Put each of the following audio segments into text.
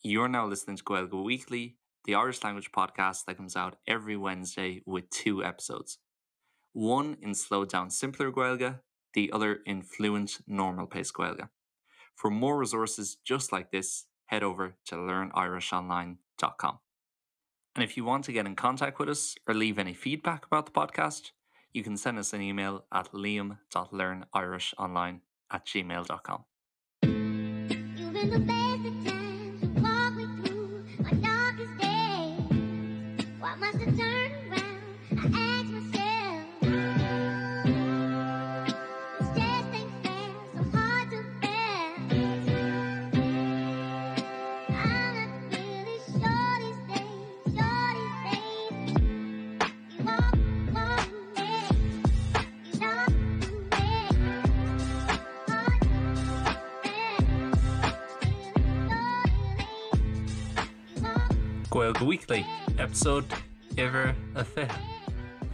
You're now listening to Gaeilge Weekly, the Irish language podcast that comes out every Wednesday with two episodes. One in slowed down simpler Gaeilge, the other in fluent normal pace Gaeilge. For more resources just like this, head over to learnirishonline.com. And if you want to get in contact with us or leave any feedback about the podcast, you can send us an email at liam.learnirishonline at gmail.com. You've been the best of times. You walk me through my darkest days. Why must I turn around? I ask myself. This just ain't fair, so hard to bear. I'm not really sure these days, sure these days. You walk, walk me, you know me. Hard to bear. Gaeilge Weekly, episode uimhir a 20.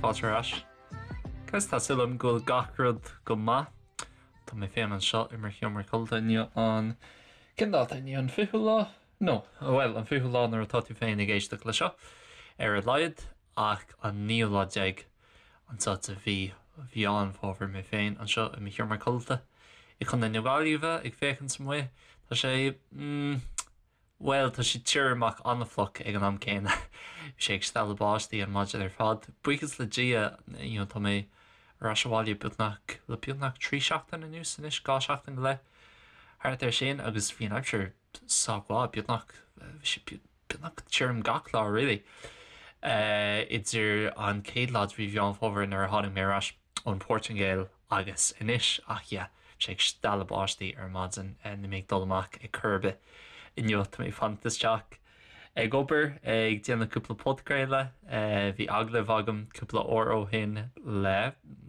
Fáilte ar ais. Guys, tá súil agam go bhfuil gach rud go maith. Tá mé féin anseo i mo sheomra codlata inniu an cén dáta inniu an 20ú lá? No, bhuel, an 20ú lá nuair atá tú féin ag éisteacht le seo, ar a laghad, ach an naoú lá déag anseo de mhí Mheán Fómhair mé féin anseo i mo sheomra codlata i gContae na Gaillimhe ag féachaint amuigh. Tá sé, mm, bhuel, tá sé tirim ach an-fhliuch ag an am céanna. Bhí sé ag stealladh báistí an maidin ar fad. Buíochas le Dia, you know, tá mé ar ais abhaile beagnach, le beagnach 3 seachtain anuas anois, 2 seachtain go leith, thart ar sin, agus bhí an aimsir sách mhaith, beagnach, bhí sé beagnach tirim gach lá really. Idir an chéad lá de mhí Mheán Fómhair nuair a tháinig mé ar ais ón Phortaingéil agus anois, ach yeah, bhí sé ag stealladh báistí ar maidin, níl mé ag dul amach ar chor ar bith inniu, tá mé ag fanacht isteach ag obair, ag déanamh cúpla podchraoladh, bhí agallamh agam cúpla uair ó shin le,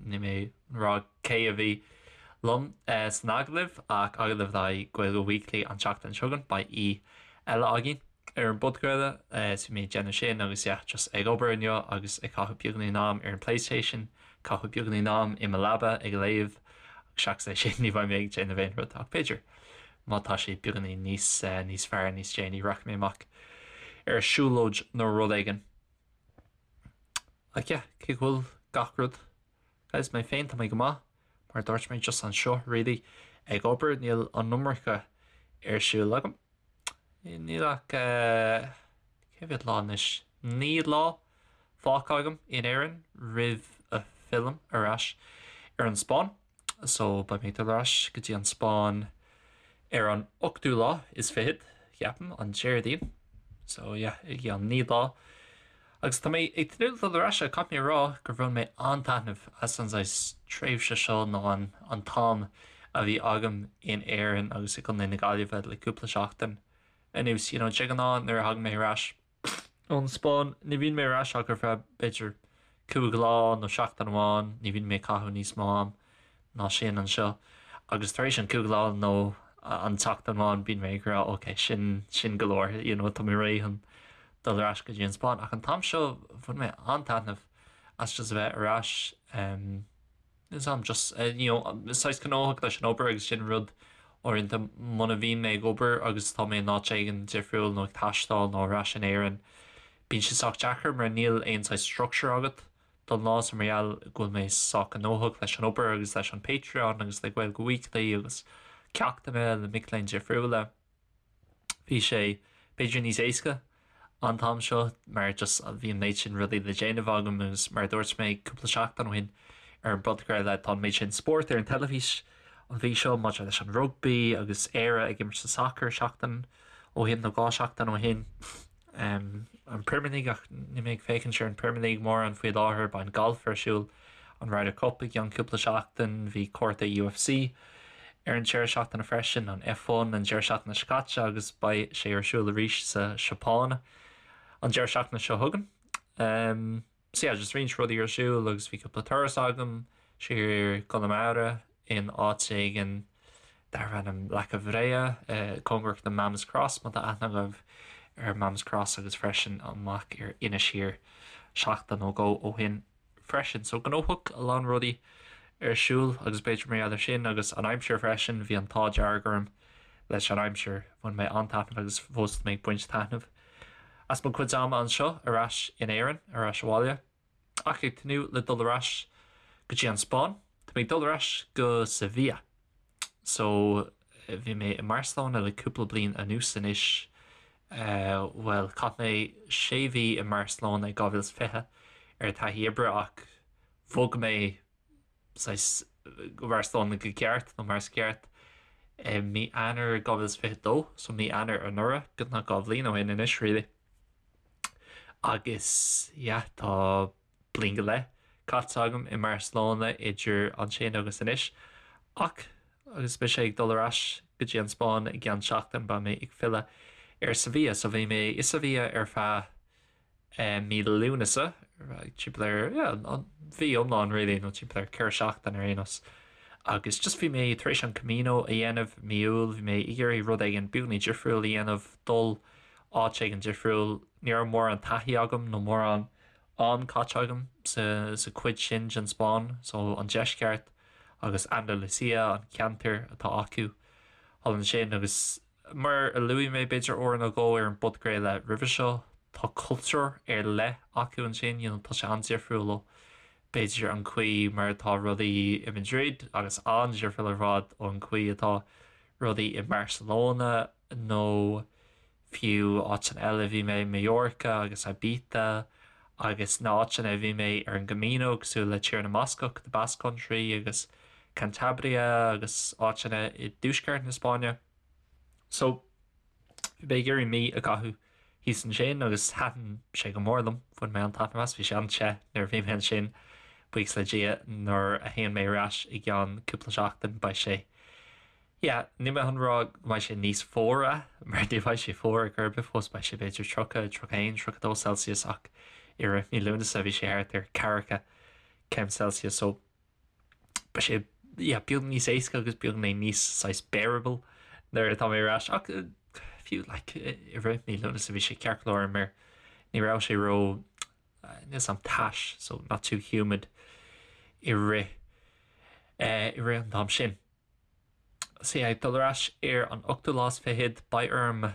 níl mé ag rá cé a bhí liom san agallamh ach agallamh le haghaidh Gaeilge Weekly an tseachtain seo chugainn, beidh aoi eile againn ar an bpodchraoladh so bhí mé ag déanamh sin agus yeah just ag obair inniu agus ag caitheamh beagáinín am ar an PlayStation, caitheamh beagáinín am i mo leaba ag léamh agus seachas é sin ní bheidh mé ag déanamh aon rud ach b'fhéidir má tá sé beagáinín níos níos fearr níos déanaí rachaidh mé amach ar siúlóid nó rud éigin. Ach yeah, cé go bhfuil gach rud Guys, mé féin, tá mé go maith, mar a dúirt mé, just anseo, really, ag obair, níl an iomarca ar siúl agam. Níl ach, cé mhéad lá anois? 9 lá fágtha agam in Éirinn roimh a phillim ar ais ar an Spáinn. So, beidh mé ag dul ar ais go dtí an Spáinn ar an ochtú lá is fichead, ceapaim, an Déardaoin. So, yeah, i gceann 9 lá. Agus tá mé ag tnúth le dul ar ais, caithfidh mé a rá gur bhain mé an-taitneamh as an saghas tréimhse seo nó an an t-am a bhí agam in Éirinn agus i gContae na Gaillimhe le cúpla seachtain anuas. You know, de ghnáth nuair a thagann mé ar ais ón Spáinn, ní bhíonn mé ar ais ach ar feadh b'fhéidir cúig lá nó seachtain amháin, ní bhíonn mé ag caitheamh níos mó am ná sin anseo agus tar éis an cúig lá nó an tseachtain amháin bíonn mé ag rá ok sin sin go leor you know tá mé réidh chun dul ar ais go dtí an Spáinn ach an t-am seo bhain mé an-taitneamh as just a bheith ar ais um, is am just uh, you know saghas gnóthach leis an obair agus sin rud uaireanta muna bhíonn mé ag obair agus tá mé in áit éigin difriúil nó ag taisteal nó ar ais in Éirinn bíonn sé sách deacair mar níl aon saghas structure agat don lá so mar gheall go bhfuil mé sách gnóthach leis an obair agus leis an Patreon agus le Gaeilge Weekly agus ceachtanna le mic léinn difriúla. Bhí sé b'fhéidir níos éasca an t-am seo mar just bhí an méid sin rudaí le déanamh agam agus mar a dúirt mé cúpla seachtain ó shin ar an bpodchraoladh tá an méid sin spórt ar an teilifís an mhí seo maidir leis an rugbaí agus Éire ag imirt sa sacar seachtain ó shin nó dhá sheachtain ó shin. an Premier League ach níl mé ag féachaint ar an Premier League mórán faoi láthair, beidh an galf ar siúl, an Ryder Cup i gceann cúpla seachtain, bhí cárta UFC ar an deireadh seachtaine freisin, an F1 an deireadh seachtaine seo caite agus beidh sé ar siúl arís sa Seapáin an deireadh seachtaine seo chugainn. So yeah, just roinnt rudaí ar siúl agus bhí cúpla turas agam siar i gConamara in áit éigin darbh ainm Leaca Bhréa, cóngarach do Mam's Cross, má tá aithne agaibh ar Mam's Cross agus freisin amach ar Inis Oírr seachtain nó dhó ó shin freisin. So gnóthach, a lán rudaí ar siúl agus b'fhéidir mar gheall ar sin agus an aimsir freisin, bhí an t-ádh dearg orm. leis an aimsir. Bhain mé an-taitneamh agus fós tá mé ag baint taitneamh as mo chuid ama anseo ar ais in Éirinn, ar ais abhaile. Ach ag tnúth le dul ar ais go dtí an Spáinn. Tá mé ag dul ar ais go Sevilla. So bhí mé i mBarcelona le cúpla bliain anuas anois. Bhuel, chaith mé sé mhí i mBarcelona i 2020 ar taithí oibre ach bhog mé saghas go Barcelona go ceart nó mar is ceart i mí Eanáir 2022, so mí Eanáir anuraidh, beagnach 2 bhliain ó shin anois really. Agus yeah, tá bliain go leith caite agam i mBarcelona idir ansin agus anois. Ach agus mise ag dul ar ais go dtí an Spáinn i gceann seachtain beidh mé ag filleadh ar Sevilla. So bhí mé i Sevilla ar feadh mí Lúnasa, timpeall ar, yeah, an mhí iomlán really, nó timpeall ar 4 seachtain ar aon nós. Agus just bhí mé tar éis an Camino a dhéanamh mí Iúil, bhí mé ag iarraidh rud éigin beagní difriúil a dhéanamh, dul áit éigin difriúil. Ní raibh mórán taithí agam nó mórán am caite agam sa sa chuid sin den Spáinn, so an deisceart agus Andalusia an ceantar atá acu thall ansin agus Mar a luaigh mé b'fhéidir uair nó dhó ar an bpodchraoladh roimhe seo, tá cultúr ar leith acu ansin, you know, tá sé an-difriúil ó b'fhéidir an chaoi mar atá rudaí i Madrid agus an-difriúil ar fad ón chaoi atá rudaí i mBarcelona nó fiú áiteanna eile bhí mé, Mallorca agus Ibiza agus na áiteanna a bhí mé ar an gCamino cosúil le Tír na mBascach, the Basque Country agus Cantabria agus áiteanna i dtuaisceart na Spáinne. So, bhí mé ag iarraidh mí a chaitheamh thíos ansin agus thaitin sé go mór liom, bhain mé an-taitneamh as, bhí sé an-te nuair a bhí mé ansin, buíochas le Dia nuair a théann mé ar ais i gceann cúpla seachtain beidh sé, yeah, níl mé chun rá go mbeidh sé níos fuaire mar ní bheidh sé fuar ar chor ar bith fós, beidh sé b'fhéidir 30, 31, 32 Celsius ach i rith mí Lúnasa bhí sé thart ar ceathracha céim Celsius so beidh sé yeah, beag níos éasca agus beagáinín níos saghas bearable nuair atá mé ar ais ach fiú like, i rith mí Lúnasa bhí sé ceart go leor mar ní raibh sé ró níl 'fhios a'm tais so not too humid i rith eh, i rith an t-am sin. So yeah, ag dul ar ais ar an ochtú lá is fichead beidh orm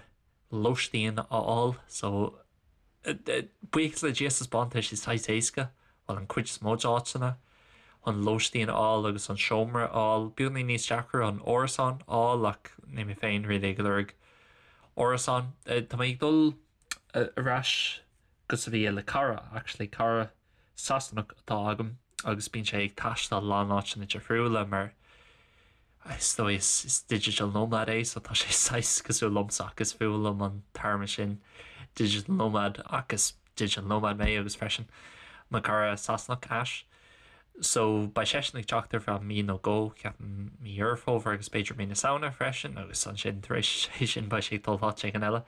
lóistín a fháil so Buíochas le Dia sa Spáinn tá sé saghas éasca, bhuel an cuid is mó d'áiteanna, chun lóistín a fháil agus an seomra a fháil. Beagáinín níos deacra an árasán a fháil ach níl mé féin really ag lorg árasán. Tá mé ag dul ar ais go Sevilla le cara actually, cara Sasanach atá agam agus bíonn sé ag taisteal a lán áiteanna difriúla mar is dóigh is digital nomad é so tá sé saghas cosúil liomsa ach is fuath liom an téarma sin digital nomad ach is digital nomad mé agus freisin mo chara Sasanach Ash. So beidh seisean ag teacht ar feadh mí nó dhó, ceapaim mí Dheireadh Fómhair agus b'fhéidir mí na Samhna freisin agus ansin tar éis sin beidh sé ag dul áit éigin eile.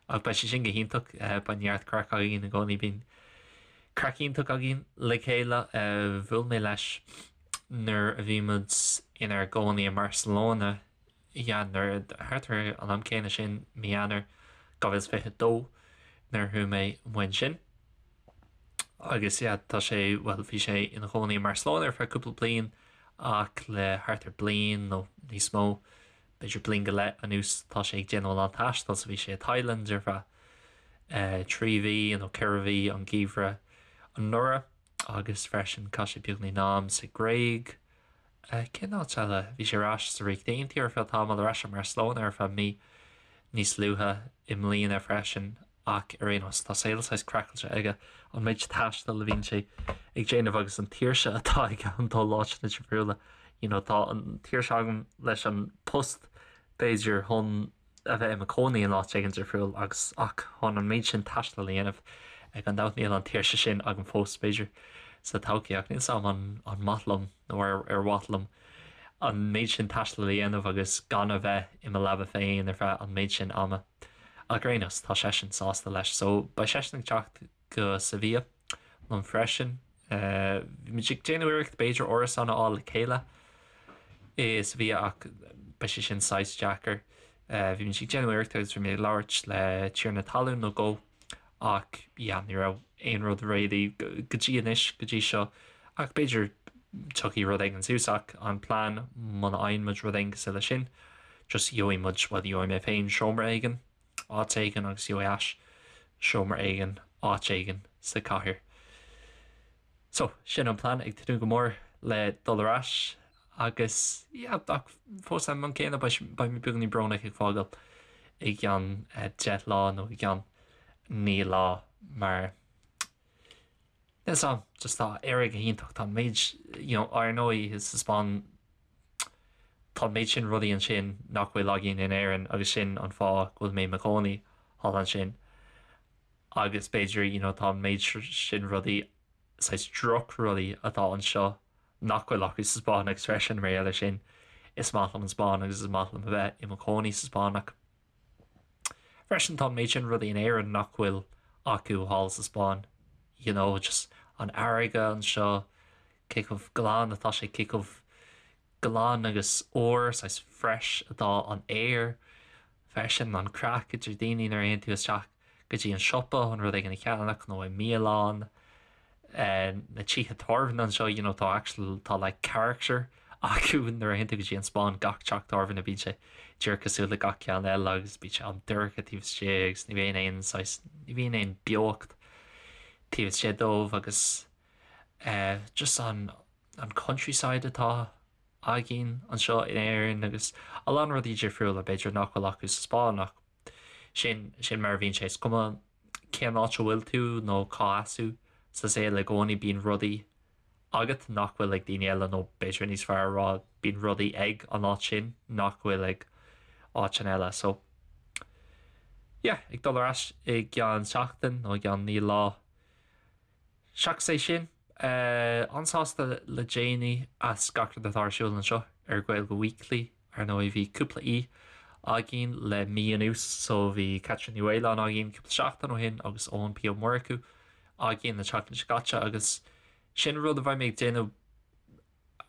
Ach beidh sé sin go hiontach, beidh neart craic againn i gcónaí, bíonn craic iontach againn le chéile. Bhuail mé leis nuair a bhí muid inár gcónaí i mBarcelona, yeah, nuair, thart ar an am céanna sin, mí Eanáir 2022, nuair a chuaigh mé amuigh ansin. Agus yeah, tá sé, bhuel, bhí sé ina chónaí i mBarcelona ar feadh cúpla bliain ach le thart ar bliain nó níos mó, b'fhéidir bliain go leith anuas tá sé ag déanamh a lán taistil so bhí sé i Thailand ar feadh 3 mhí nó 4 mhí an geimhreadh anuraidh agus freisin chaith sé beagáinín am sa Ghréig. Cén áit eile? Bhí sé ar ais sa Ríocht Aontaithe ar feadh tamaill, ar ais i mBarcelona ar feadh mí níos luaithe i mbliana freisin ach ar aon nós tá saol saghas craiceáilte aige, an méid taistil a bhíonn sé ag déanamh agus an tsaoirse atá aige chun dul áiteanna difriúla. You know, tá an tsaoirse agam leis an post b'fhéidir chun a bheith i mo chónaí in áit éigin difriúil agus ach chun an méid sin taistil a dhéanamh gan dabht níl an tsaoirse sin agam fós b'fhéidir sa todhchaí ach níl 's a'm an an maith liom nó ar ar mhaith liom an méid sin taistil a dhéanamh agus gan a bheith i mo leaba féin ar feadh an méid sin ama. Ach ar aon nós, tá seisean sásta leis. So, beidh seisean ag teacht go Sevilla liom freisin. Bhí muid ag déanamh iarracht b'fhéidir árasán a fháil le chéile i Sevilla ach beidh sé sin saghas deacair. Bhí muid ag déanamh iarracht agus bhí mé ag labhairt le tiarna talún nó dhó ach yeah, ní raibh aon rud réidh go dtí anois, go dtí seo. Ach b'fhéidir tiocfaidh rud éigin suas ach an plean muna fhaigheann muid rud éigin cosúil leis sin. Just gheobhaidh muid, bhuel gheobhaidh mé féin seomra éigin, áit éigin agus gheobhaidh Ash seomra éigin, áit éigin sa chathair. So, sin an plean, ag tnúth go mór le dul ar ais agus yeah, ach fós ag an am céanna beidh mé beagáinín brónach ag fágáil i gceann 10 lá nó i gceann 9 lá mar Níl 's a'm, just tá Éire go hiontach, tá an méid, you know, ar ndóigh sa Spáinn tá an méid sin rudaí ansin nach bhfuil againn in Éirinn agus sin an fáth go bhfuil mé i mo chónaí thall ansin agus b'fhéidir, you know, tá an méid sin rudaí, saghas drochrudaí atá anseo nach bhfuil acu sa Spáinn agus freisin mar gheall air sin is maith liom an Spáinn agus is maith liom a bheith i mo chónaí sa Spáinn ach Freisin tá an méid sin rudaí in Éirinn nach bhfuil acu thall sa Spáinn, you know, just an fharraige anseo, cé chomh glan atá sé, cé chomh glan agus úr, saghas fresh atá an aer, freisin an craic idir daoine nuair a théann tú isteach go dtí an siopa chun rud éigin a cheannach nó i mbialann. Na tithe tábhairne anseo, you know, tá actual, tá like character acu nuair a théann tú go dtí an Spáinn, gach teach tábhairne bíonn sé díreach cosúil le gach ceann eile agus bíonn sé an-dorcha taobh istigh agus ní bhíonn aon saghas, ní bhíonn aon beocht taobh istigh dóibh agus eh just an, an countryside atá againn anseo in Éirinn agus a lán rudaí difriúla b'fhéidir nach bhfuil acu sa Spáinn ach sin, sin mar a bhíonn sé. Is cuma cén áit a bhfuil tú nó cá as thú sa saol i gcónaí bíonn rudaí agat nach bhfuil ag daoine eile nó b'fhéidir níos fearr a rá bíonn rudaí ag an áit sin nach bhfuil ag áiteanna eile. So yeah, ag dul ar ais i gceann seachtain nó i gceann 9 lá. Seachas é sin, an-sásta le déanaí as gach rud atá ar siúl anseo ar Gaeilge Weekly. Ar ndóigh bhí cúpla aoi againn le mí anuas so bhí Caitríona Ní Mhaoláin againn cúpla seachtain ó shin agus Eoin P Ó Murchú againn an tseachtain seo caite agus sin rud a bheidh mé ag déanamh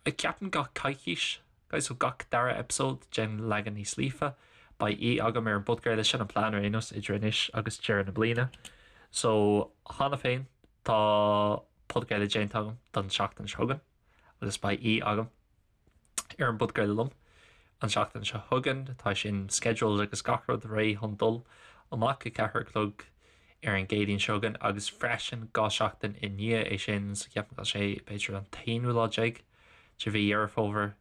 ceapaim gach coicís, guys, so gach dara episode den leagan níos líofa beidh aoi agam ar an bpodchraoladh sin an plean ar aon nós idir anois agus deireadh na bliana. So cheana féin tá podchraoladh déanta agam don tseachtain seo chugainn agus beidh aoi agam ar an bpodchraoladh liom an tseachtain seo chugainn. Tá sin scheduled agus gach rud réidh chun dul amach ag 4 a chlog ar an gCéadaoin seo chugainn agus freisin 2 seachtain i ndiaidh é sin, so ceapaim go bhfuil sé b'fhéidir an t-aonú lá déag de mhí Dheireadh Fómhair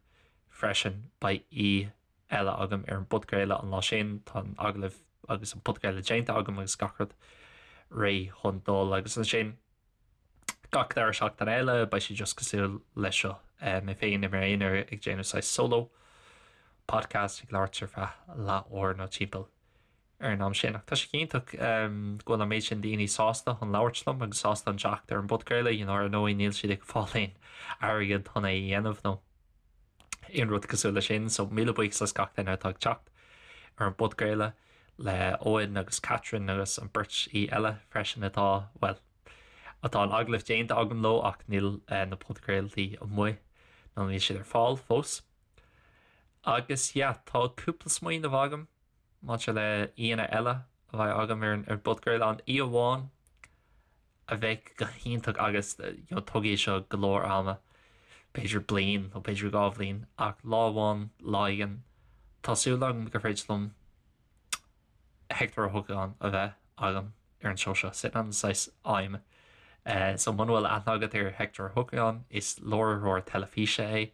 freisin beidh aoi eile agam ar an bpodchraoladh an lá sin. Tá an agallamh agus an podchraoladh déanta agam agus gach rud réidh chun dul agus ansin gach dara seachtain eile beidh sé just cosúil leis seo, mé féin i m'aonar ag déanamh saghas solo podcast ag labhairt ar feadh leath uair nó timpeall ar an am sin. Ach tá sé iontach go bhfuil an méid sin daoine sásta chun labhairt liom agus sásta chun teacht ar an bpodchraoladh, you know, ar ndóigh níl siad ag fáil aon airgead chun é a dhéanamh nó aon rud cosúil leis sin, so míle buíochas as gach duine atá ag teacht ar an bpodchraoladh le Eoin agus Catherine agus an beirt aoi eile freisin atá, bhuel, atá an agallamh déanta agam leo ach níl na podchraoltaí amuigh nó níl siad ar fáil fós. Agus yeah, tá cúpla smaoineamh agam maidir le aíonna eile a bheidh agam ar an bpodchraoladh, an aoi amháin a bheadh go hiontach agus you know tógfaidh seo go leor ama, b'fhéidir bliain nó b'fhéidir 2 bhliain, ach lá amháin, lá éigin, tá súil agam gur féidir liom Hector Ó hEochagáin a bheith agam ar an seó seo. Sin an saghas aidhm. So muna bhfuil aithne agat ar Hector Ó hEochagáin, is láithreoir teilifíse é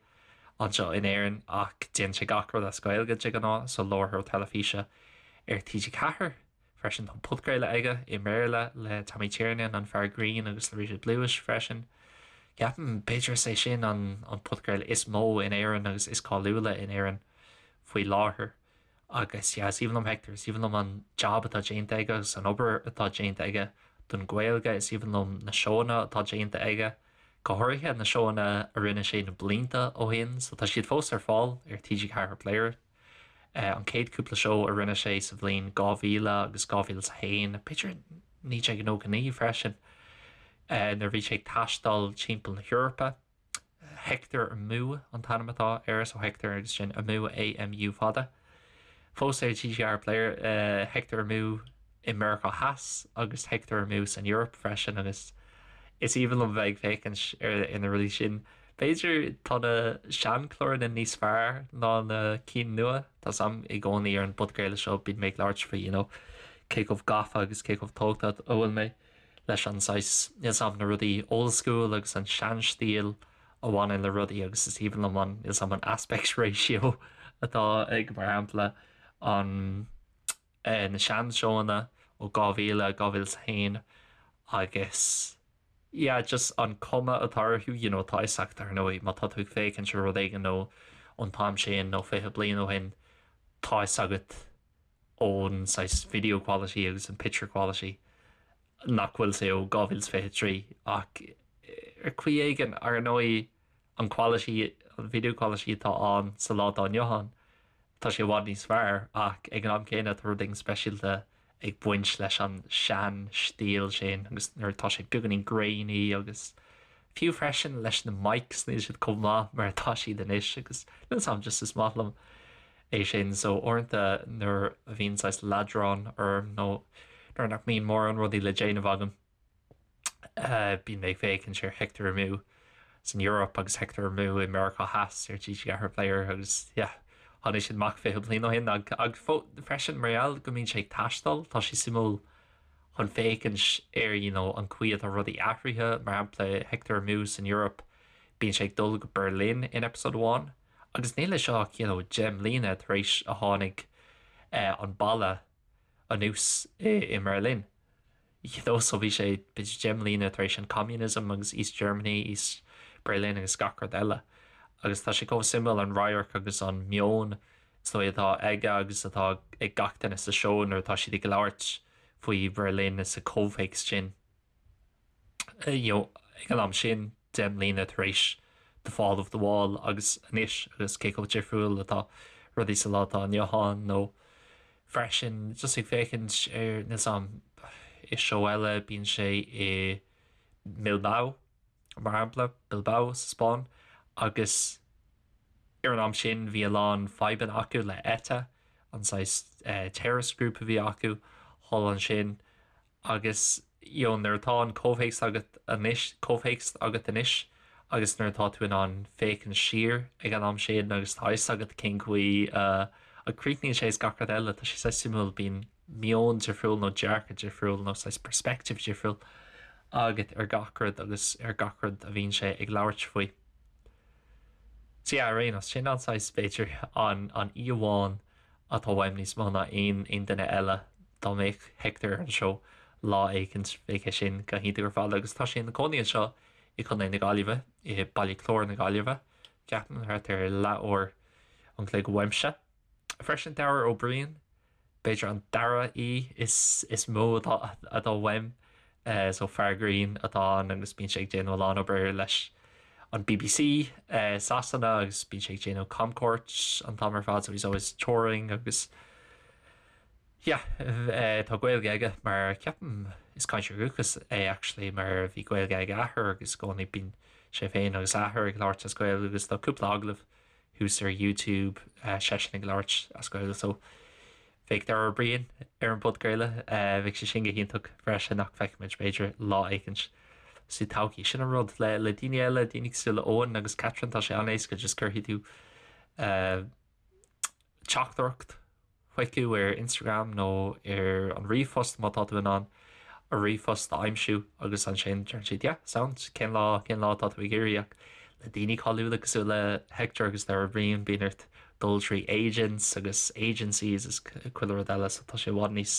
anseo in Éirinn ach déanann sé gach rud as Gaeilge de ghnáth, so láithreoir teilifíse ar TG4 freisin. Tá podchraoladh aige i mBéarla le Tommy Tiernan, an fear grinn agus le Richard Lewis freisin. Ceapaim b'fhéidir is é sin an podchraoladh is mó in Éirinn agus is cáiliúla in Éirinn faoi láthair. Agus yeah, is aoibhinn liom Hector, is aoibhinn liom an job atá déanta aige agus an obair atá déanta aige don Ghaeilge, is aoibhinn liom na seóanna atá déanta aige, go háirithe na seóanna a rinne sé na blianta ó shin, so tá siad fós ar fáil ar TG4 Player. An chéad cúpla seó a rinne sé sa bhliain 2000 agus 2001, b'fhéidir 1999 freisin, nuair a bhí sé ag taisteal timpeall na hEorpa. Hector Amú an t-ainm atá air, so Hector agus sin Amú, A-M-U fada. Fós ar TG4 Player, Hector Amú i Meiriceá Theas agus Hector Amú san Eoraip freisin agus is aoibhinn liom bheith ag féachaint ar na rudaí sin. B'fhéidir tá na seanchláranna níos fearr ná na cinn nua. Tá 's a'm i gcónaí ar an bpodchraoladh seo bíonn mé ag labhairt faoi you know cé chomh gafa agus cé chomh tógtha a bhfuil mé leis an saghas níl 's a'm na rudaí old school agus an seanstíl a bhaineann le rudaí agus is aoibhinn liom an níl 's a'm an aspect ratio atá ag mar shampla an na seanseóanna ó 2000, 2001 agus yeah just an cuma atá orthu you know tá 'fhios agat ar ndóigh má tá tú ag féachaint ar rud éigin nó ón t-am sin nó 20 bliain ó shin tá 'fhios agat ón saghas video quality agus an picture quality nach bhfuil sé ó 2023 ach ar chaoi éigin ar ndóigh an quality, an video quality atá ann sa lá atá inniu ann, tá sé i bhfad níos fearr ach ag an am céanna tá rud éigin speisialta ag baint leis an sean-stíl sin agus nuair atá sé beagáinín grainy agus fiú freisin leis na mics níl siad chomh maith mar atá siad anois agus níl 'fhios a'm just is maith liom é sin so uaireanta nuair a bhíonn saghas leadrán orm nó nuair nach mbíonn mórán rudaí le déanamh agam Bíonn mé ag féachaint ar Hector Amú san Eoraip agus Hector Amú i Meiriceá Theas ar TG4 Player agus yeah tháinig siad amach 20 bliain ó shin ag freisin mar gheall go mbíonn sé ag taisteal tá sé suimiúil chun féachaint ar you know an chaoi atá rudaí athraithe mar shampla Hector Amú san Eoraip bíonn sé ag dul go Berlin in episode amháin agus níl sé seo ach you know 10 mbliana tar éis a tháinig an balla anuas i mBerlin. You know so bhí sé b'fhéidir 10 mbliana tar éis an communism agus East Germany, East Berlin agus gach rud eile. Agus tá sé chomh suimiúil an radharc agus an meon is dóigh atá aige agus atá ag gach duine sa seó nuair atá siad ag labhairt faoi Berlin sa chomhthéacs sin. You know, ag an am sin, 10 mbliana tar éis the fall of the wall agus anois agus cé chomh difriúil atá rudaí sa lá atá inniu ann nó freisin just ag féachaint ar níl 's a'm i seó eile bíonn sé i mBilbao mar shampla, Bilbao sa Spáinn agus ar an am sin bhí a lán fadhbanna acu le ETA, an saghas terrorist group a bhí acu thall ansin Agus you know nuair atá an comhthéacs agat anois, comhthéacs agat anois agus nuair atá tú in ann féachaint siar ag an am sin agus tá fhios agat cén chaoi a a críochnaíonn sé is gach rud eile, tá sé saghas suimiúil, bíonn meon difriúil nó dearcadh difriúil nó saghas perspective difriúil agat ar gach rud agus ar gach rud a bhíonn sé ag labhairt faoi. So yeah, ar aon nós, sin an saghas, b'fhéidir, an an íomhá atá uaim níos mó ná aon aon duine eile. Dá mbeadh Hector ar an seó lá éicint bheadh é sin go hiontach ar fad agus tá sé ina cónaí anseo i Contae na Gaillimhe, i Baile Chláir na Gaillimhe, ceapaim, thart ar leathuair an chloig uaimse. Freisin Dara Ó Briain, b'fhéidir an dara aoi is is mó atá atá uaim. So fear grinn atá ann agus bíonn sé ag déanamh a lán obair leis an BBC Sasana agus bíonn sé ag déanamh camchuairt an t-am ar fad so he's always touring agus yeah tá Gaeilge aige mar ceapaim is cainteoir dúchais é actually mar bhí Gaeilge ag a athair agus i gcónaí bíonn sé féin agus a athair ag labhairt as Gaeilge agus tá cúpla agallamh thuas ar YouTube seisean ag labhairt as Gaeilge so bheadh Dara Ó Briain ar an bpodchraoladh bheadh sé sin go hiontach freisin ach feicfimid b'fhéidir lá éicint sa todhchaí. Sin an rud le le daoine eile, daoine cosúil le Eoin agus Catherine tá sé an-éasca just cuirfidh tú teachtaireacht chucu ar Instagram nó ar an ríomhphost má tá tú in ann a ríomhphost a aimsiú agus ansin deireann siad yeah sound cén lá cén lá atá tú ag iarraidh ach le daoine cáiliúla cosúil le Hector agus Dara Ó Briain bíonn ort dul trí agents agus agencies is chuile rud eile so tá sé i bhfad níos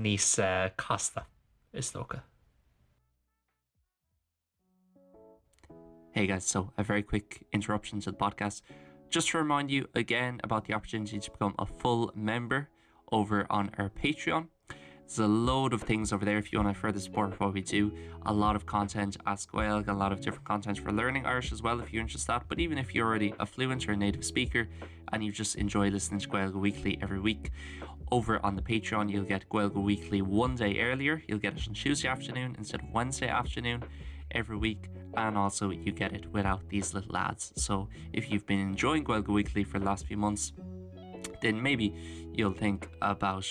níos casta is dócha. Hey guys, so a very quick interruption to the podcast. Just to remind you again about the opportunity to become a full member over on our Patreon. There's a load of things over there if you want to further support what we do. A lot of content as Gaeilge, a lot of different content for learning Irish as well if you're interested in that. But even if you're already a fluent or a native speaker and you just enjoy listening to Gaeilge Weekly every week, over on the Patreon you'll get Gaeilge Weekly one day earlier. You'll get it on Tuesday afternoon instead of Wednesday afternoon every week and also you get it without these little ads. So if you've been enjoying Gaeilge Weekly for the last few months, then maybe you'll think about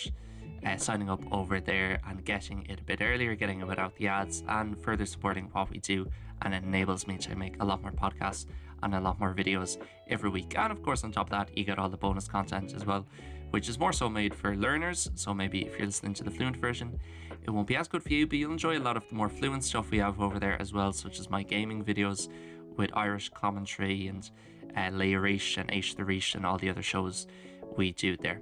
uh, signing up over there and getting it a bit earlier, getting it without the ads and further supporting what we do and it enables me to make a lot more podcasts and a lot more videos every week. And of course on top of that you get all the bonus content as well, which is more so made for learners. So maybe if you're listening to the fluent version, it won't be as good for you, but you'll enjoy a lot of the more fluent stuff we have over there as well, such as my gaming videos with Irish commentary and uh, Leirish and H the Rish and all the other shows we do there.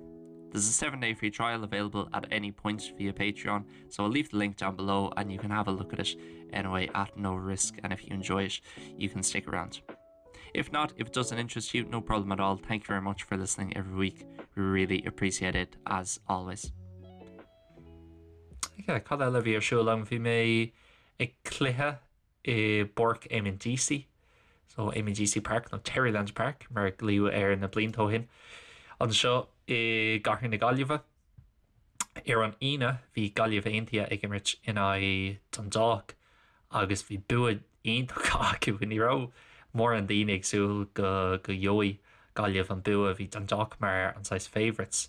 There's a 7-day free trial available at any point via Patreon, so I'll leave the link down below and you can have a look at it anyway at no risk and if you enjoy it, you can stick around. If not, if it doesn't interest you, no problem at all. Thank you very much for listening every week. We really appreciate it as always. Yeah, cad eile a bhí ar siúl agam bhí mé ag cluiche i bPáirc Eamonn Deacy, so Eamonn Deacy Park nó Terryland Park mar a glaodh air na blianta ó shin, anseo i gcathair na Gaillimhe. Ar an Aoine bhí Gaillimh Aontaithe ag imirt in aghaidh Dundalk agus bhí bua iontach acu. Ní raibh mórán daoine ag súil go go gheobhaidh Gaillimh an bua, bhí Dundalk mar an saghas favourites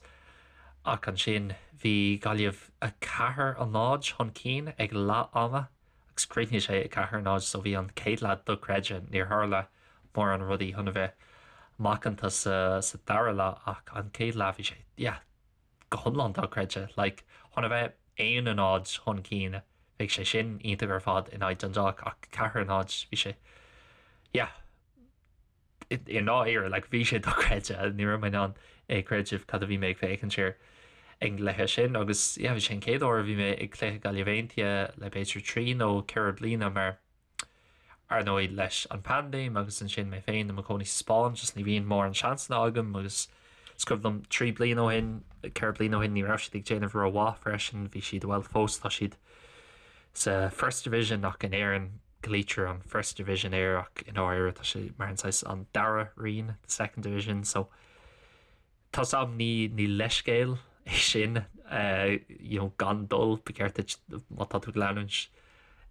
ach ansin bhí Gaillimh 4-0 chun cinn ag leath ama. agus chríochnaigh sé 4-0 so bhí an chéad leath dochreidte. Níor tharla mórán rudaí chun a bheith macánta sa sa dara leath ach an chéad leath bhí sé yeah go hiomlán dochreidte. Like chun a bheith 1-0 chun cinn bheadh sé sin iontach ar fad in aghaidh Dundalk ach 4-0 bhí sé yeah i ndáiríre, like, bhí sé dochreidte, ní raibh mé in ann é creideamh cad a bhí mé ag féachaint air ag an gcluiche sin agus yeah, bhí sé an chéad uair a bhí mé ag cluiche Gaillimh Aontaithe le b'fhéidir 3 nó 4 bliana mar ar ndóigh leis an paindéim agus ansin mé féin i mo chónaí sa Spáinn just ní bhíonn mórán seansanna agam agus is cuimhin liom 3 bliana ó shin, 4 bliana ó shin ní raibh siad ag déanamh rómhaith freisin, bhí siad, bhuel fós tá siad sa First Division ach in Éirinn glaoitear an First Division air ach i ndáiríre tá sé mar an saghas an dara roinn, the second division, so tá 's a'm ní ní leithscéal é sin you know gan dul, ba cheart duit má tá tú ag leanúint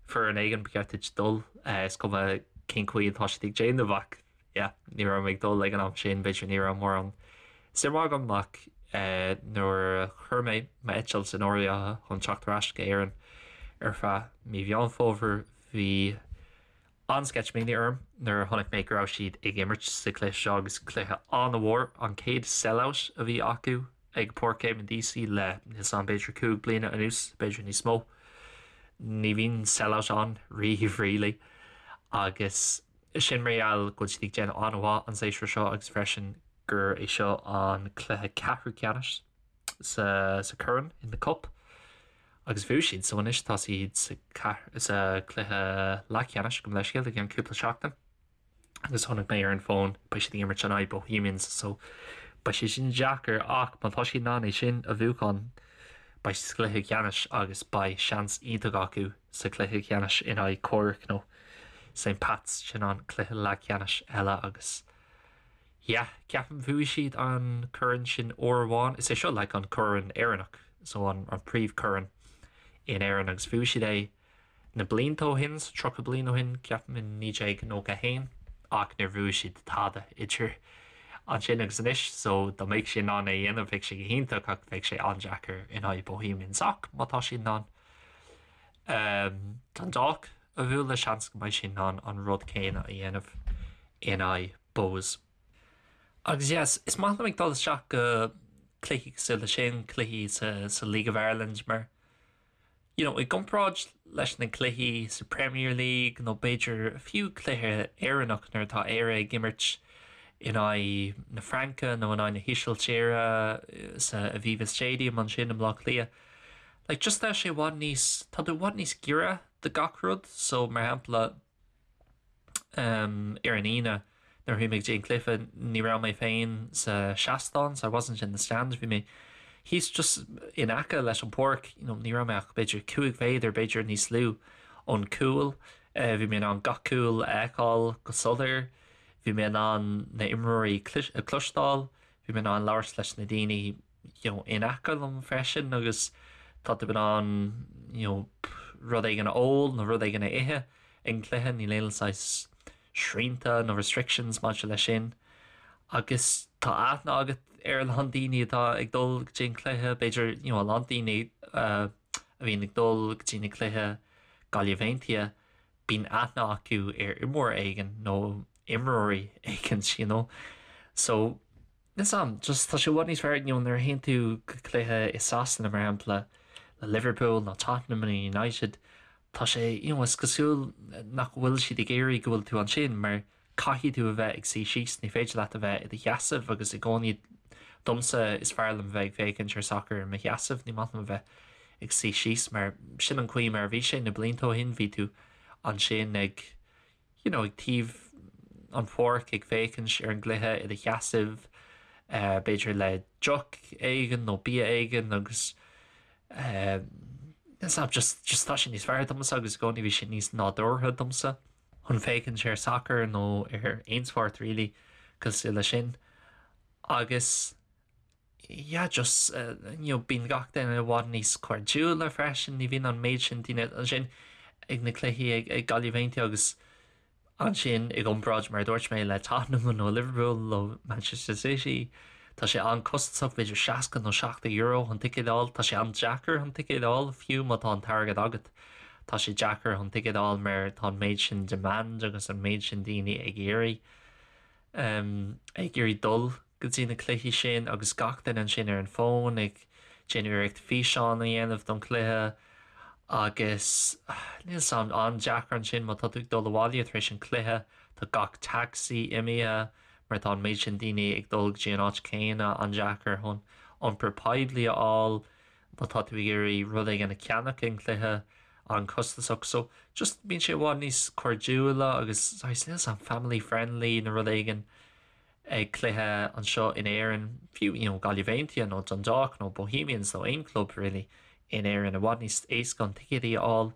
foireann éigin ba cheart duit dul is cuma cén chaoi atá siad ag déanamh ach yeah, ní raibh mé ag dul ag an am sin, b'fhéidir ní raibh mórán suim agam ach nuair a chuir mé m'eitilt in áirithe chun teacht ar ais go Éirinn ar feadh mí Mheán Fómhair bhí an-sceitimíní orm nuair a chonaic mé go raibh siad ag imirt sa chluiche seo agus cluiche an-mhór, an chéad sell-out a bhí acu ag Páirc Eamonn Deacy le níl 's a'm b'fhéidir 5 bliana anuas, b'fhéidir níos mó. Ní bhíonn sell-out ann riamh really agus Sin mar gheall go bhfuil siad ag déanamh an-mhaith an séasúr seo agus freisin gur é seo an cluiche ceathrú ceannais sa sa corn, in the cup, agus bhuaigh siad so anois tá siad sa sa cluiche leathcheannais gabh mo leithscéal i gceann cúpla seachtain agus chonaic mé ar an bhfón beidh siad ag imirt in aghaidh Bohemians so beidh sé sin deacair ach má tá siad in ann é sin a bhuachan beidh siad sa chluiche ceannais agus beidh seans iontach acu sa chluiche ceannais in aghaidh Cork nó St Pat's, sin an cluiche leathcheannais eile agus yeah, ceapaim bhuaigh siad an corn sin uair amháin, is é seo like an corn Éireannach, so an an príomhchorn in Éirinn agus bhuaigh siad é na blianta ó shin, so 30 bliain ó shin, ceapaim in 1991 ach níor bhuaigh siad tada idir ansin agus anois, so dá mbeadh siad in ann é a dhéanamh bheadh sé go hiontach ach bheadh sé an-deacair in aghaidh Bohemians ach má tá siad in ann Dundalk a bhualadh, seans go mbeidh siad in ann an rud céanna a dhéanamh in aghaidh Bohs. Agus yes, is maith liom ag dul isteach go cluichí cosúil leis sin, cluichí sa, sa League of Ireland mar you know, i gcomparáid leis na cluichí sa Premier League nó b'fhéidir fiú cluiche Éireannach nuair atá Éire ag imirt in aghaidh na Fraince nó in aghaidh na hÍsiltíre sa Aviva Stadium ansin i mBleá Cliath. Like just tá sé i bhfad níos, tá tú i bhfad níos giorra do gach rud, so mar shampla um, ar an Aoine nuair a bhí mé ag dtí an cluiche ní raibh mé féin sa seastán, so I wasn't in the stand, bhí mé thíos just in aice leis an páirc, you know, ní raibh mé ach b'fhéidir 5 mhéadar, b'fhéidir níos lú ón cúl, uh, bhí mé in ann gach cúl a fheiceáil go soiléir, bhí mé in ann na imreoirí a cloisteáil, bhí mé in ann labhairt leis na daoine you know, in aice liom freisin agus tá tú in ann you know, rud éigin a ól nó rud éigin a ithe ag an cluiche, níl aon saghas srianta nó restrictions maidir leis sin. Agus tá aithne agat ar a lán daoine atá ag dul go dtí an cluiche, b'fhéidir you know a lán daoine a bhíonn ag dul go dtí na cluiche Gaillimh Aontaithe, bíonn aithne acu ar imreoir éigin nó imreoirí éigin you know. So níl 's a'm, just tá sé i bhfad níos fearr you know nuair a théann tú go cluiche i Sasana mar shampla le Liverpool nó Tottenham nó United, tá sé you know is cosúil nach bhfuil siad ag iarraidh go bhfuil tú ansin mar Caithfidh tú a bheith ag suí síos, ní féidir leat a bheith i do sheasamh agus i gcónaí domsa is fearr liom bheith ag féachaint ar sacar i mo sheasamh, ní maith liom a bheith ag suí síos mar sin an chaoi mar a bhí sé na blianta ó shin, bhí tú ansin ag you know ag taobh an pháirc ag féachaint ar an gcluiche i do sheasamh b'fhéidir le deoch éigin nó bia éigin agus eh just just tá sé níos fearr domsa agus i gcónaí bhí sé níos nádúrtha domsa. chun féachaint ar sacar nó ar aon spórt really cosúil leis sin agus yeah just you know bíonn gach duine i bhfad níos cairdiúla freisin, ní bhíonn an méid sin daoine ansin ag na cluichí ag ag Gaillimh Aontaithe agus ansin i gcomparáid mar a dúirt mé le Tottenham nó Liverpool nó Manchester City tá sé an-costasach b'fhéidir 60 nó 70 euro chun ticéad a fháil, tá sé an-deacair chun ticéad a fháil fiú má tá an t-airgead agat. Tá sé deacair chun ticéad a fháil mar tá an méid sin demand agus an méid sin daoine ag iarraidh ag iarraidh dul go dtí na cluichí sin agus gach duine ansin ar an bhfón ag déanamh iarracht físeán a dhéanamh don chluiche agus níl 's a'm an-deacair ansin má tá tú ag dul abhaile tar éis an chluiche tá gach taxi imithe mar tá an méid sin daoine ag dul go dtí an áit céanna an-deacair chun iompar poiblí a fháil. má tá tú ag iarraidh rud éigin a cheannach ag an gcluiche, an-chostasach. So, just bíonn sé i bhfad níos cairdiúla agus saghas, níl 's a'm, family friendly nó rud éigin ag cluiche anseo in Éirinn, fiú, you know, Gaillimh Aontaithe nó Dundalk nó Bohemians nó aon club really in Éirinn, i bhfad níos éasca chun ticéadaí a fháil.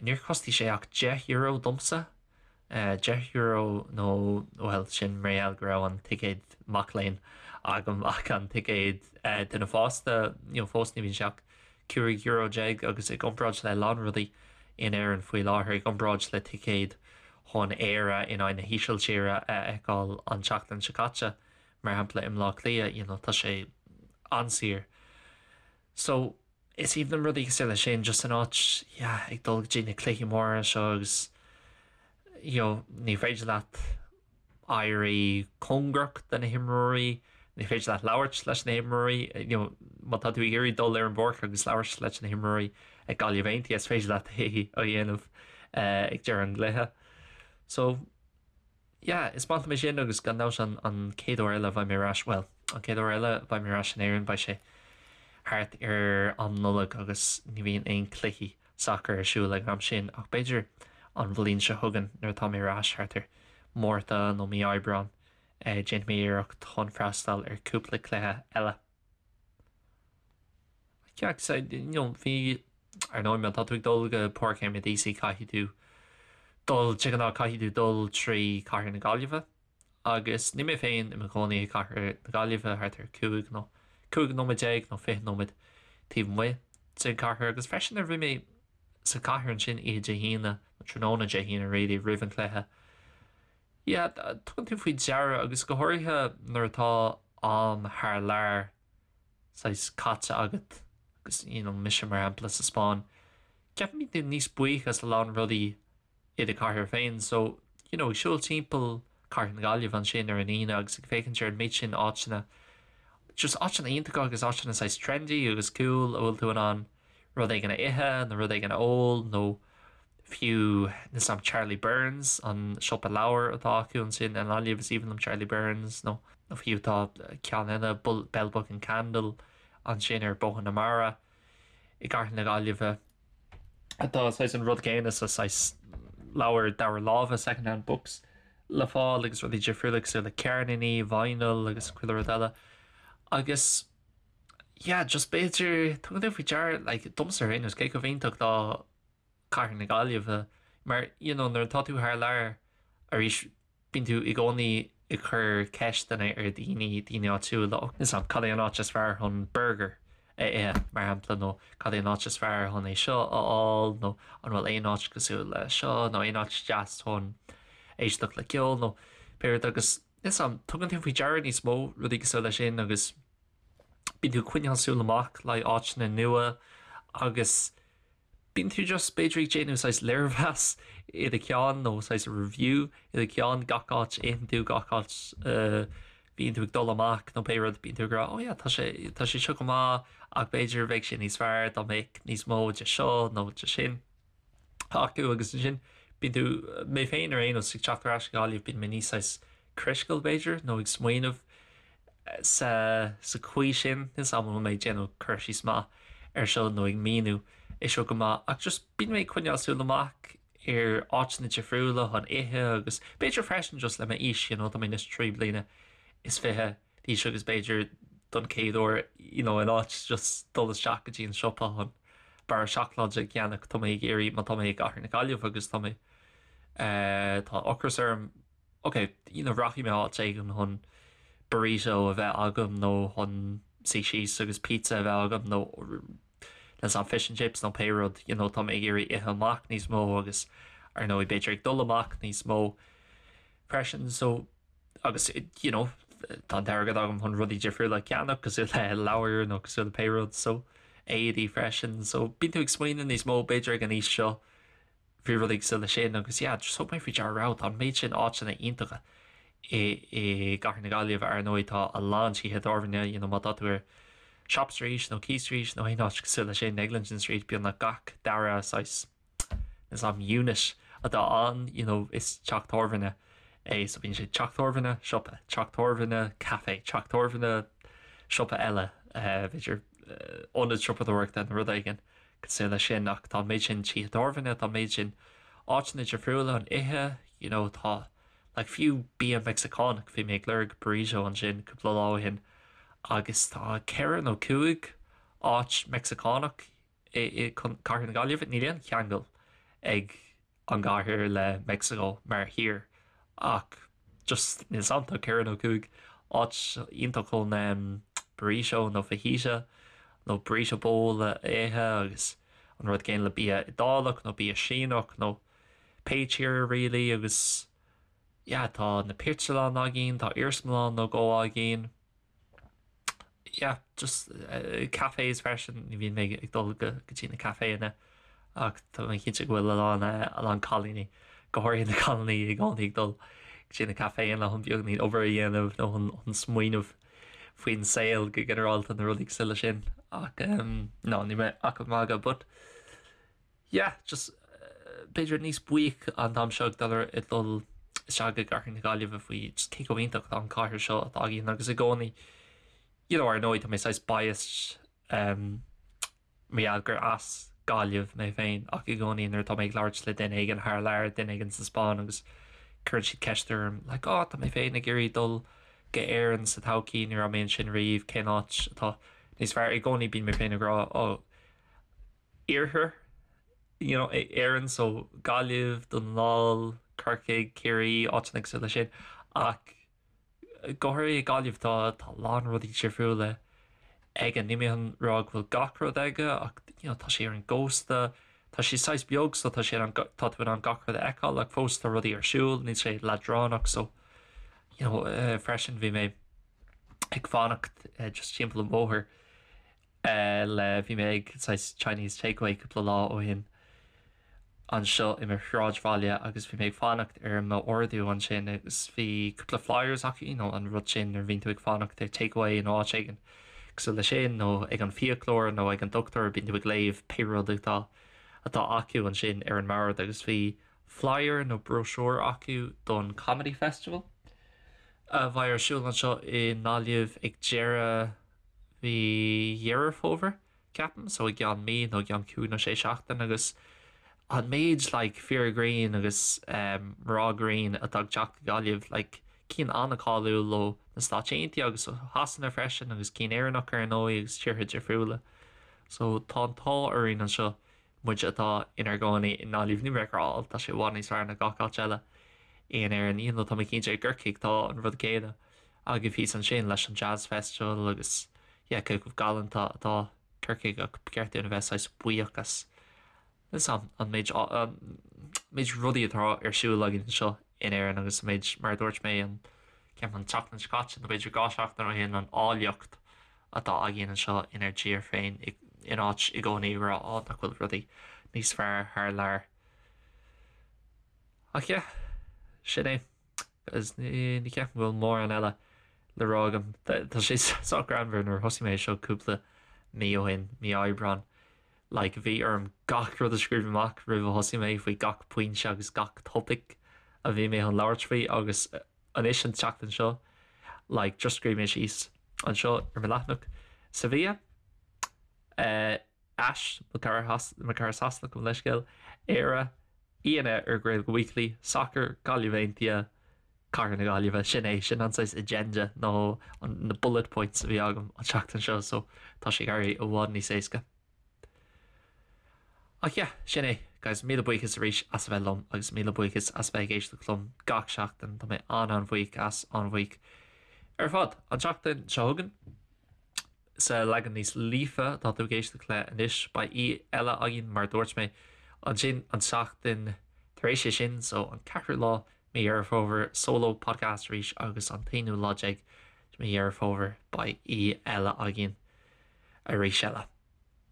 Níor chostaigh sé ach €10 domsa, €10 nó, bhuel, sin mar gheall go raibh an ticéad mac léinn agam ach an ticéad duine fásta, you know, fós ní bhíonn sé ach €15 agus i gcomparáid le a lán rudaí in Éirinn faoi láthair, i gcomparáid le ticéad chun Éire in aghaidh na hÍsiltíre a fheiceáil an tseachtain seo caite, mar shampla i mBleá Cliath, you know, tá sé an-saor. So, is aoibhinn liom rudaí cosúil leis sin, just an áit, yeah, ag dul go dtí na cluichí móra seo agus, you know, ní féidir leat éirí cóngarach do na himreoirí, ní féidir leat labhairt leis na himreoirí, you know, má tá tú ag iarraidh dul ar an bpáirc agus labhairt leis na himreoirí ag Gaillimh Aontaithe, is féidir leat é a dhéanamh ag deireadh an chluiche. So, Yeah, is maith liom é sin agus gan dabht an an chéad uair eile a bheidh mé ar ais, bhuel, an chéad uair eile a bheidh mé ar ais in Éirinn beidh sé thart ar am Nollag agus ní bhíonn aon cluichí sacair ar siúl ag an am sin ach b'fhéidir an bhliain seo chugainn nuair atá mé ar ais thart ar Márta nó mí Aibreáin déanfaidh mé iarracht chun freastal ar cúpla cluiche eile. Yeah, so, you know, bhí, ar ndóigh, má tá tú ag dul go Páirc Éamonn Deacy caithfidh tú dul, de ghnáth caithfidh tú dul trí Cathair na Gaillimhe agus níl mé féin i mo chónaí i gCathair na Gaillimhe thart ar 5 nó 15 nóiméad nó 20 nóiméad taobh amuigh den chathair agus freisin nuair a bhí mé sa chathair ansin oíche Dé hAoine, nó tráthnóna Dé hAoine really, roimh an chluiche. Yeah, tugann tú faoi deara agus go háirithe nuair atá am thar lear saghas caite agat agus you know mise mar shampla sa Spáinn, ceapaim bíonn tú níos buíoch as a lán rudaí i do chathair féin so you know ag siúl timpeall cathair na Gaillimhe ansin ar an Aoine agus ag féachaint ar an méid sin áiteanna just áiteanna iontacha agus áiteanna saghas trendy agus cool a bhfuil tú in ann rud éigin a ithe nó rud éigin a ól nó fiú níl 's a'm Charlie Byrne's, an siopa leabhar atá acu ansin i nGaillimh, is aoibhinn liom Charlie Byrne's nó fiú tá ceann eile Bell Book and Candle ansin ar Bóthar na Mara i gcathair na Gaillimhe atá saghas an rud céanna so saghas leabhair dara láimhe second hand books le fáil agus rudaí difriúla cosúil le ceirníní, vinyl agus chuile rud eile agus yeah just b'fhéidir tugann tú faoi deara like domsa ar aon nós cé chomh iontach atá cathair na Gaillimhe mar you know nuair atá tú thar lear arís bíonn tú i gcónaí ag cur ceisteanna ar dhaoine, daoine áitiúla, níl 's a'm cad é an áit is fearr chun burger a ithe mar shampla nó cad é an áit is fearr chun é seo a fháil nó an bhfuil aon áit cosúil le seo nó aon áit deas chun éisteacht le ceol nó pé rud agus. Níl 's a'm, tugann tú faoi deara níos mó rudaí cosúil leis sin agus bíonn tú ag coinneáil súil amach le áiteanna nua agus bíonn tú just b'fhéidir ag déanamh saghas léirmheas i do cheann nó saghas review i do cheann gach áit a itheann tú, gach áit a bhíonn tú ag dul amach nó pé rud, bíonn tú ag rá oh yeah tá sé tá sé seo go maith ach b'fhéidir bheadh sé níos fearr dá mbeadh níos mó de seo nó de sin acu agus ansin bíonn tú, mé féin ar aon nós, ag teacht ar ais go Gaillimh bíonn mé níos saghas critical b'fhéidir nó ag smaoineamh sa sa chaoi sin, níl 's a'm an bhfuil mé ag déanamh cur síos maith ar seo nó ag míniú é seo go maith ach just bíonn mé ag coinneáil súil amach ar áiteanna difriúla chun ithe agus b'fhéidir freisin just le m'aois, you know, tá mé anois 23 bliana d'aois agus b'fhéidir don chéad uair, you know, in áit just dul isteach go dtí an siopa chun barra seacláide a cheannach, tá mé ag iarraidh, má tá mé i gcathair na Gaillimhe agus tá mé, eh, tá ocras orm, ok, you know, rachaidh mé áit éigin chun burrito a bheith agam nó chun suí síos agus pizza a bheith agam nó leis an fish and chips nó pé rud, you know, tá mé ag iarraidh ithe amach níos mó agus ar ndóigh b'fhéidir ag dul amach níos mó freisin so agus you know, tá an t-airgead agam chun rudaí difriúla a cheannach cosúil le leabhair nó cosúil le pé rud so éadaí freisin so bíonn tú ag smaoineamh níos mó b'fhéidir ag an aois seo faoi rudaí cosúil leis sin agus yeah just thug mé faoi deara wow tá an méid sin áiteanna iontacha i i gCathair na Gaillimhe ar ndóigh tá a lán tithe tábhairne you know má tá tú ar Shop Street nó Quay Street nó aon áit cosúil leis sin Eglinton Street beagnach gach dara saghas níl 's a'm unit atá ann you know is teach tábhairne é so bíonn sé teach tábhairne siopa teach tábhairne café teach tábhairne siopa eile eh, b'fhéidir eh, ionad siopadóireachta nó rud éigin cosúil leis sin ach tá an méid sin tithe tábhairne, tá an méid sin áiteanna difriúla chun ithe, you know tá like fiú bia Meicsiceánach, bhí mé ag lorg burrito ansin cúpla lá ó shin agus tá ceithre nó cúig áit Meicsiceánach i i Cathair na Gaillimhe, níl aon cheangal ag an gcathair le Meicsiceo mar thír ach just níl 's a'm tá ceithre nó cúig áit iontach chun burrito nó fajita nó burrito bowl a ithe agus an rud céanna le bia Iodálach nó bia Síneach nó pé tír really agus yeah tá na pictiúrlann againn, tá iarsmalann nó dhó againn. yeah, just uh, cafés freisin, ní bhíonn mé ag dul go dtí na caiféanna ach tá mé cinnte go bhfuil a lán eh, a lán cailíní, go háirithe na cailíní i gcónaí ag dul go dtí na caiféanna chun beagáinín obair a dhéanamh nó chun chun smaoineamh faoin saol go ginearálta na rudaí cosúil leis sin ach um, no, níl mé ach ag magadh but yeah, just b'fhéidir níos buíoch an t-am seo ag dul ar ag dul isteach i gcathair na Gaillimhe faoi just cé chomh iontach atá an cathair seo atá againn agus i gcónaí you know ar ndóigh tá mé saghas biased um, mar gheall gur as Gaillimh mé féin ach i gcónaí nuair atá mé ag labhairt le duine éigin thar lear, duine éigin sa Spáinn agus cuireann siad ceist orm like oh tá mé féin ag iarraidh dul go Éirinn sa todhchaí ní raibh mé ansin riamh cén áit atá níos fearr i gcónaí bíonn mé féin ag rá oh iarthar you know, Éireann so Gaillimh, Dún na nGall, Corcaigh, Ciarraí, áiteanna cosúil leis sin ach go háirithe Gaillimh tá tá a lán rudaí difriúla aige. Níl mé chun rá go bhfuil gach rud aige ach you know, tá sé ar an gcósta, tá sé saghas beag so tá sé an, tá tú in ann gach rud a fheiceáil ach fós tá rudaí ar siúl, níl sé leadránach so you know, uh, freisin bhí mé ag fanacht uh, just timpeall an bhóthair le bhí mé ag saghas Chinese takeaway cúpla lá ó shin anseo i mo shráidbhaile agus bhí mé ag fanacht ar m'ordú ansin agus bhí cúpla flyers acu, you know, an rud sin nuair a bhíonn tú ag fanacht ar takeaway in áit éigin cosúil leis sin nó ag an fiaclóir nó ag an dochtúir bíonn tú ag léamh pé rud atá atá acu ansin ar an mbord agus bhí flyer nó brochure acu don Comedy Festival a bheidh ar siúl anseo i nGaillimh ag deireadh mhí Dheireadh Fómhair, ceapaim, so i gceann mí nó i gceann cúig nó sé seachtain agus an méid like fir grinn agus um, mná grinn atá ag teacht go Gaillimh like cinn an-cháiliúil ó na Stáit Aontaithe agus ó Shasana freisin agus cinn Éireannach ar ndóigh agus tíortha difriúla. So tá an t-ádh orainn anseo muid atá inár gcónaí i nGaillimh, níl mé ag rá tá sé i bhfad níos fearr ná gach áit eile in Éirinn, even though tá mé cinnte i gCorcaigh tá an rud céanna agaibh thíos ansin leis an Jazz Festival agus yeah cé chomh galánta atá Corcaigh ach ba cheart dúinn a bheith saghas buíoch as an an méid an méid rudaí atá ar siúl againn anseo in Éirinn agus an méid mar a dúirt mé an. ceapaim an tseachtain seo caite nó b'fhéidir 2 seachtain ó shin an áilleacht atá againn anseo inár dtír féin in áit i gcónaí a rá á nach bhfuil rudaí níos fearr thar lear. Ach yeah, sin é. Agus ní ceapaim go bhfuil mórán eile le rá agam. Tá sé sách greannmhar nuair a thosaigh mé seo cúpla mí ó shin, mí Aibreán, like bhí orm gach rud a scríobh amach roimh a thosaigh mé faoi gach pointe agus gach topaic a bhí mé chun labhairt faoi agus anois an tseachtain seo like just scríobh mé síos anseo ar mo leathanach Sevilla eh, Ash, mo chara mo chara Sasanach gabh mo leithscéal, Éire, aíonna ar Gaeilge Weekly, Sacar, Gaillimh Aontaithe, Cathair na Gaillimhe. Sin é, sin an saghas agenda nó na bullet points a bhí agam an tseachtain seo so tá sé ag éirí i bhfad níos éasca. Ach yeah, sin é, guys, míle buíochas arís as a bheith liom agus míle buíochas as a bheith ag éisteacht liom gach seachtain, tá mé an-an-bhuíoch as, an-bhuíoch ar fad. An tseachtain seo chugainn, sa leagan níos líofa atá tú ag éisteacht le anois, beidh aoi eile againn mar a dúirt mé ansin an tseachtain tar éis é sin, so an ceathrú lá mí Dheireadh Fómhair, solo podcast arís agus an t-aonú lá déag de mí Dheireadh Fómhair beidh aoi eile againn arís eile.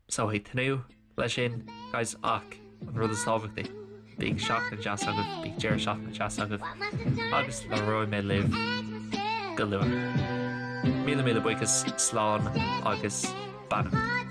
So ag tnúth leis sin, guys, ach an rud is tábhachtaí, bíodh seachtain deas agaibh, bíodh deireadh seachtaine deas agaibh, agus labhróidh mé libh go luath. Míle míle buíochas, slán agus beannacht.